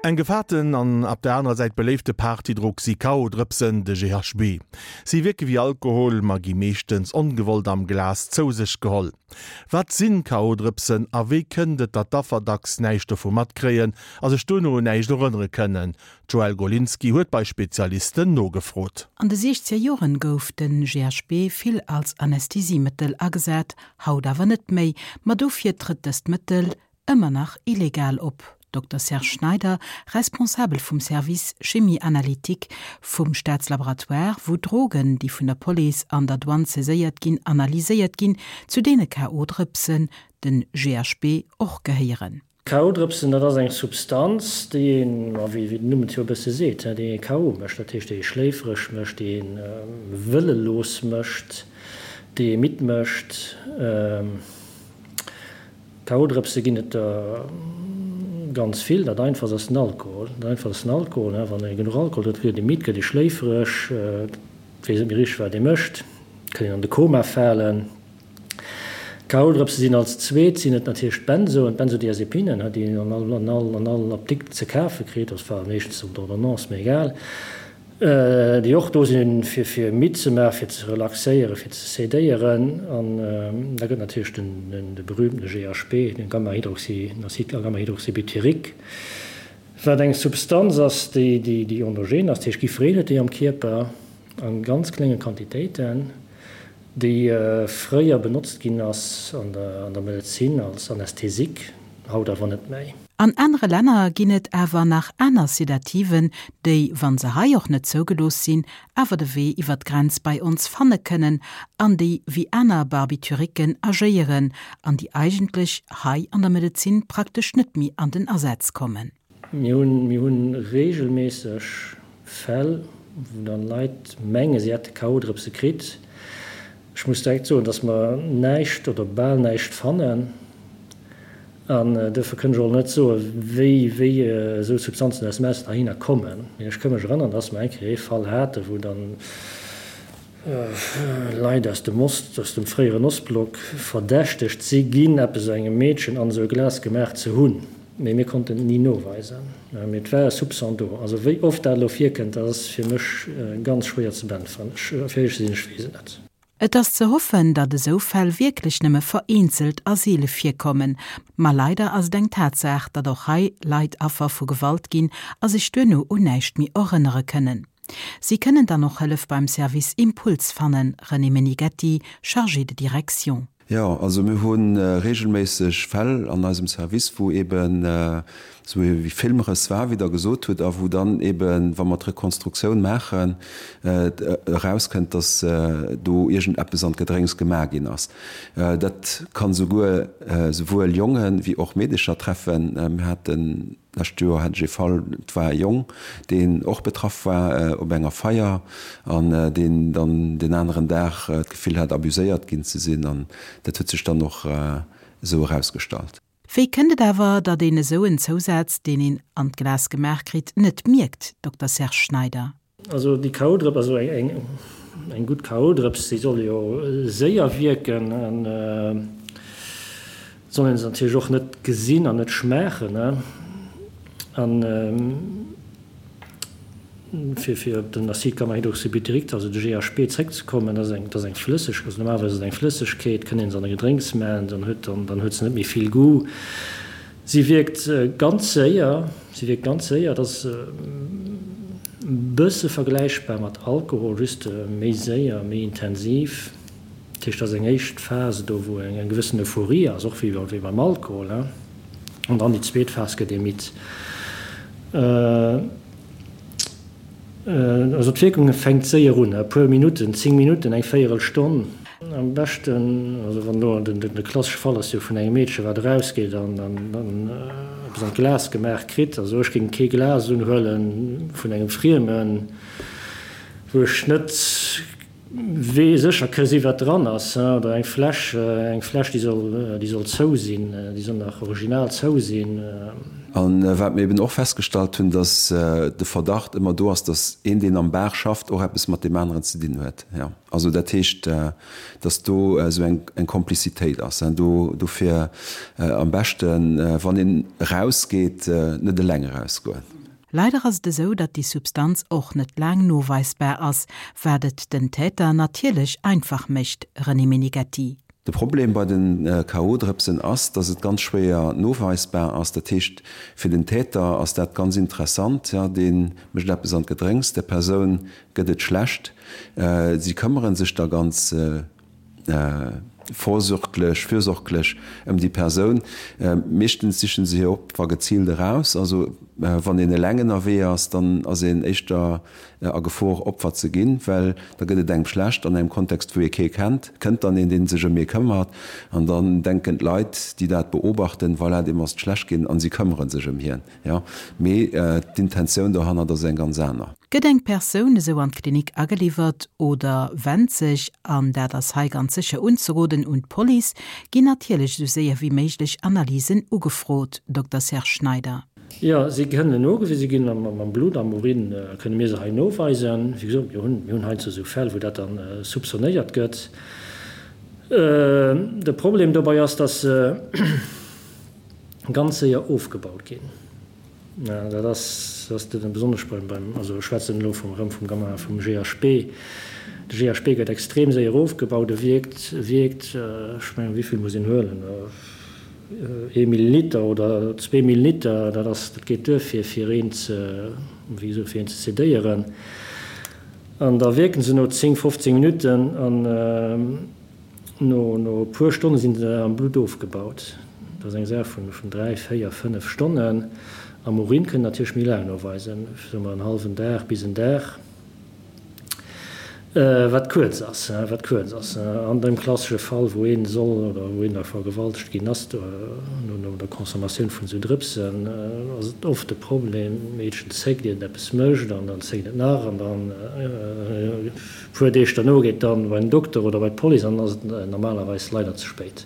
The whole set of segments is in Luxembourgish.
Eng gefaarten an op der anerer Säit beléifte Partydrog si K.O.-Drëpsen, de GHB. Si wierke wéi Alkohol, ma gi meeschtens ongewollt am Glas zou sech geholl. Wat sinn K.O.-Drëpsen a wéi kënnt et, datt d'Affer dacks näischt dovu matkréien a sech duerno un näischt erënnere kënnen? D'Joëlle Golinski huet bei Spezialisten nogefrot. An de siechzeger Joren gouf de GHB vill als Anästhesiemëttel agesat, haut awer net méi. Ma dofir trëtt dëst Mëttel ëmmer nach illegal op. Dokter Serge Schneider, Responsabel vum Service Chimie analytique vum Staatslaboratoire, wou Drogen, déi vun der Police an der Douane saiséiert ginn, analyséiert ginn, zu deene KO-Drëpsen, den GHB, och gehéieren. KO-Drëpsen, dat ass eng Substanz, déi een, ma wéi den Numm et jo e bësse seet, déi ee KO mécht, dat heescht déi ee schléifereg mécht, déi ee wëllelos mécht, déi ee midd mécht. K.O.-Drëpse ginn et der ganz vill. Dat einfachst ass den Alkohol. Dat einfachst ass den Alkohol. Wann ee genuch Alkohol drénkt, gëtt ee midd, gëtt ee schléifereg, weess net méi richteg, wat ee mécht, kann een an de Koma falen. K.O.-Drëpse sinn als zweet sinn et natierlech d'Benzoen, d'Benzodiazepinen, déi een an all, an all, an all Apdikt ze kafe kritt, also zwar meeschtens op Ordonnance, mee egal. Déi och do sinn, fir fir midd ze maachen, fir ze relaxéieren, fir ze sedéieren. An da gëtt natierlech den de berühmtene GHB, den Gamma-Hydroxy, den Acide gamma-hydroxybutyrique, wat eng Substanz ass, déi déi déi endogen ass, dat heescht jiddwereen huet déi am Kierper a ganz klénge Quantitéiten, déi fréier benotzt ginn ass an der an der Medezin als Anästhesique, haut awer net méi. An anere Länner ginn et awer nach aner Sedativen, déi, wa se hei och net zougelooss sinn, awer de Wee iwwer d'Grenz bei ons fanne kënnen an déi wéi aner Barbituriquen agéieren an déi eigentlech hei an der Medezin praktesch net méi an den Asaz kommen. Mir hunn, mir hunn regelméisseg Fäll, wou dann Leit mengen, si hätte K.O.-Drëpse kritt. Ech muss direkt soen, dass mer näischt oder bal näischt fannen. An duerfir kënn ech och net soen, wéi, wéi esou Substanzen aus dem Ausland heihinner kommen. Mee ech ka mech erënnern, dass mer eng Kéier ee Fall haten, wou dann Leit aus dem Ost, aus dem fréieren Ostblock verdächtegt si ginn, eppes engem Meedchen an esou e Glas gemaach ze hunn. Mee mir konnten et ni noweisen. Mee et war e Soupçon do. Also wéi oft dat elo virkënnt, dat ass fir mech ganz schwéier ze beäntweren. Ech, fir éierlech ze sinn, ech weess et net. Et ass ze hoffen, datt esou Fäll wierklech nëmme vereenzelt a seele virkommen. Ma leider ass et eng Tatsaach, datt och hei Leit Affer vu Gewalt ginn a sech duerno un näischt méi erënnere kënnen. Si kënnen dann och Hëllef beim Service Impuls fannen, René Menighetti, Chargé de direction. Jo, also mir hu regelméisseg Fäll an eisem Service, wou eben esou wéi Filmrëss war, wéi Der gesot hutt, a wou dann eben, wa mer d'Rekonstruktioun maachen, erauskënnt, dass do iergendeppes an d'Gedrénks gemaach ginn ass. Dat kann souguer souwuel Jonge wéi och Meedecher treffen. Mir haten d'lescht Joer hat ech ee Fall, et war e Jong, deen och betraff war op enger Feier an deen dann deen aneren Dag d'Gefill hat, abuséiert ginn ze sinn. An dat huet sech dann och esou erausgestallt. Wéi kënnt et awer, datt een esou en Zousaz, deen een an d'Glas gemaach kritt, net mierkt, Dokter Serge Schneider? Also déi K.O.-Drëps, also eng gutt K.O.-Drëps, déi soll jo séier wierken an soll een se natierlech och net gesinn an net schmaachen. An fir fir op den Acide gamma-hydroxybutyrique, also de GHB, zréckzekommen, dat ass eng, dat ass eng Flësseg, also normalerweis ass et eng Flëssegkeet, kënnt een se an e Gedrénks maachen, dann huet, dann huet se net méi vill Goût. Si wierkt ganz séier, si wierkt ganz séier, et ass e bësse vergläichbar mat Alkohol, just méi séier, méi intensiv. Dat heescht, et ass eng éischt Phase do, wou eng gewëssen Euphorie ass, och wéi beim Alkohol, an dann déi zweet Phas gëtt ee midd. Also d'Wierkung fänkt séier un, e puer Minutten, 10 Minutten, eng Véierelstonn. Am beschten, also wann elo de klassesche Fall ass jo vun engem Meedche wat erausgeet an eppes an d'Glas gemaach kritt, also ech géing kee Glas unhuele vun engem Friemen, wou ech net wee sécher ke si wat dran ass, oder eng Fläsch, eng Fläsch déi soll, déi soll zou sinn, déi soll nach original zou sinn. An wat mir eben och festgestallt hunn, dass de Verdacht ëmmer do ass, dass een, deen am Bar schafft, och eppes mat deem aneren ze dinn huet. Jo, also dat heescht, dass do esou eng Komplizitéit ass. Do, dofir am beschten, wann een erausgeet, net eleng erausgoen. Leider ass et esou, datt déi Substanz och net laang noweisbar ass, wat et den Täter natierlech einfach mécht, René Meneghetti. De Problem bei de KO-Drëpsen ass, dass et ganz schwéier noweisbar ass. Dat heescht, fir den Täter ass dat ganz interessant, jo, dee mécht eppes an d'Gedrénks, der Persoun gëtt et schlecht, si këmmere sech da ganz vorsorglech, fürsorglech ëm déi Persoun. Meeschtens sichen se hir Opfer geziilt eraus. Also wann een eleng ënnerwee ass, dann ass een éischter a Gefor Opfer ze ginn, well da gëtt et engem schlecht an engem Kontext wou ee kee kennt, kënnt dann een deen sech ëm ee këmmert an dann denken d'Leit déi dat beobachten, voilà deem ass et schlecht ginn an si këmmere sech ëm hien, jo, mee d'Intentioun dohannert ass eng ganz aner. Gëtt eng Persoun esou an d'Klinik ageliwwert oder wennt sech, an dat ass hei ganz sécher unzeroden, un d'Police, ginn natierlech esou séier wéi méiglech Analysen ugefrot, Dokter Serge Schneider. Jo, si kënnen nogewise ginn am Blutt, am Urin kënne mir se hei noweisen. Wéi gesot, mir hunn, mir hunn heiansdo esou Fäll, wou dat dann soupçonnéiert gëtt. De Problem dobei ass, dass se ganz séier ofgebaut ginn. Dat ass, dat ass besonnesch beim, beim, also ech schwätzen elo vum, erëm vum Gamma, vum GHB. De GHB gëtt extrem séier ofgebaut, e wierkt, wierkt, ech mengen, wéi vill muss een huelen? Ee Milliliter oder zwee Milliliter, dat ass, dat geet duer fir, fir een ze, wéi gesot, fir een ze sedéieren. An da wierken se no 10, 15 Minutten an no, no e puer Stonne sinn se am Blutt ofgebaut. Dat ass eng Saach vun, vun dräi, véier, fënnef Stonnen. Am Urin kënnt natierlech méi laang noweisen, soe mer en hallwen Dag bis en Dag. Wat kuerz ass, wat kuerz ass. An deem klassesche Fall, wou ee soll oder wou een da vergewaltegt ginn ass, no der Consommatioun vun esou Drëpsen, ass et oft de Problem, d'Meedchen zéckt, iert et eppes mécht, an dann zéckt et nach, an dann e puer Deeg derno geet dann bei den Dokter oder bei d'Police, an dann ass et normalerweis leider ze spéit.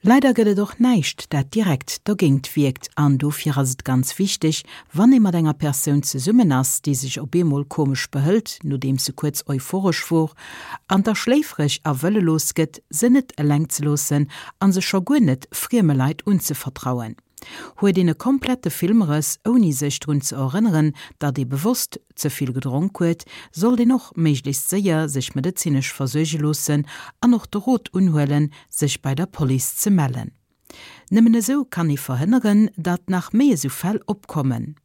Leider gëtt et och näischt, dat direkt dogéint wierkt an dofir ass et ganz wichteg, wann ee mat enger Persoun zesummen ass, déi sech op eemol komesch behëlt, nodeems se kuerz euphoresch wor, an da schléifreg a wëllelos gëtt, se net eleng ze loossen a se scho guer net frieme Leit unzevertrauen. Huet een e komplette Filmrëss, ouni sech drun ze erënneren, datt ee bewosst ze vill gedronk huet, sollt een och méiglechst séier sech medezinesch versuerge loossen an och de Rot unhuelen, sech bei der Police ze mellen. Nëmmen esou kann ee verhënneren, datt nach méi esou Fäll opkommen.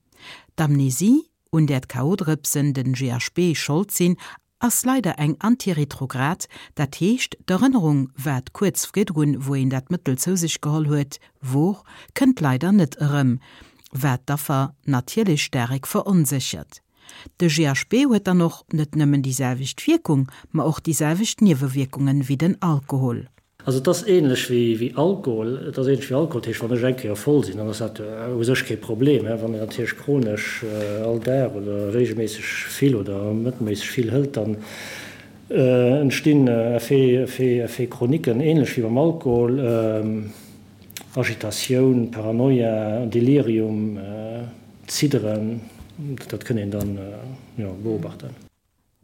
D'Amnesie, un där d'KO-Drëpsen, den GHB, Schold sinn, ass leider eng antiretrograd, dat heescht d'Erënnerung, wat kuerz virdrun, wou een dat Mëttel zou sech geholl huet, wor, kënnt leider net erëm, wat d'Affer natierlech staarek veronséchert. De GHB huet dann och net nëmmen déi selwecht Wierkung, ma och déi selwecht Niewewierkungen wéi den Alkohol. Also et ass ähnlech wéi Alkohol, et ass ähnlech wéi Alkohol, dat heescht wann ech eng Kéier voll sinn, dann ass dat u sech kee Problem. Wann een natierlech chronesch all Dag oder regelméisseg vill oder mëttelméisseg vill hëlt, dann entstinn Effets chroniquen, ähnlech wéi beim Alkohol, Agitatioun, Paranoia, Delirium, Zidderen, dat kënn een dann jo beobachten.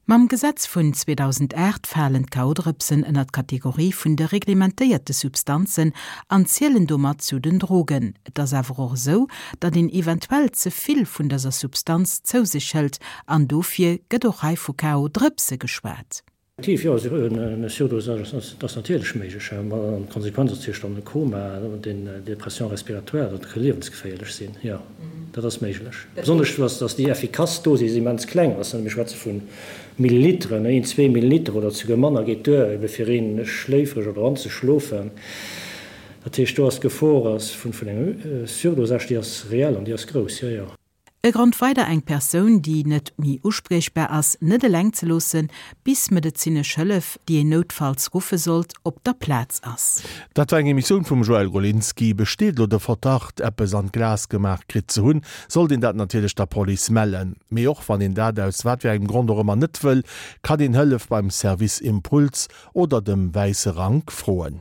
Mam Gesetz vun 2008 falen d'K.O.-Drëpsen ënner d'Kategorie vun de reglementéierte Substanzen an zielen domat zu den Drogen. Et ass awer och esou, datt een eventuell ze vill vun dëser Substanz zou sech hëlt an dofir gëtt och hei vu K.O.-Drëpse geschwat. Effektiv, jo, e Surdosage ass natierlech méiglech. An d'Konsequenz ass natierlech dann e Koma, den Dépression respiratoire, dat ka liewensgeféierlech sinn, jo, dat ass méiglech. Besonnesch dass déi effikass Dosis immens kleng ass, mir schwätze vu Milliliteren, een, zwee Milliliter oder souguer manner geet duer, ebe fir een schléifreg oder anzeschlofen. Dat heescht, do ass d'Gefor vun engem Surdosage, déi ass reell an déi ass grouss, jo, jo. E Grond weider eng Persoun, déi net méi uspriechbar ass, net eleng ze loossen, bis medezinesch Hëllef, déi een noutfalls ruffe sollt, op der Plaz ass. Dat war eng Emissioun vum Joël Golinski. Besteet elo de Verdacht, eppes an d'Glas gemaach kritt ze hunn, sollt een dat natierlech der Police mellen. Mee och wann een dat aus wat fir engem Grond och ëmmer net wëll, kann een Hëllef beim Service Impuls oder dem Wäisse Rank froen.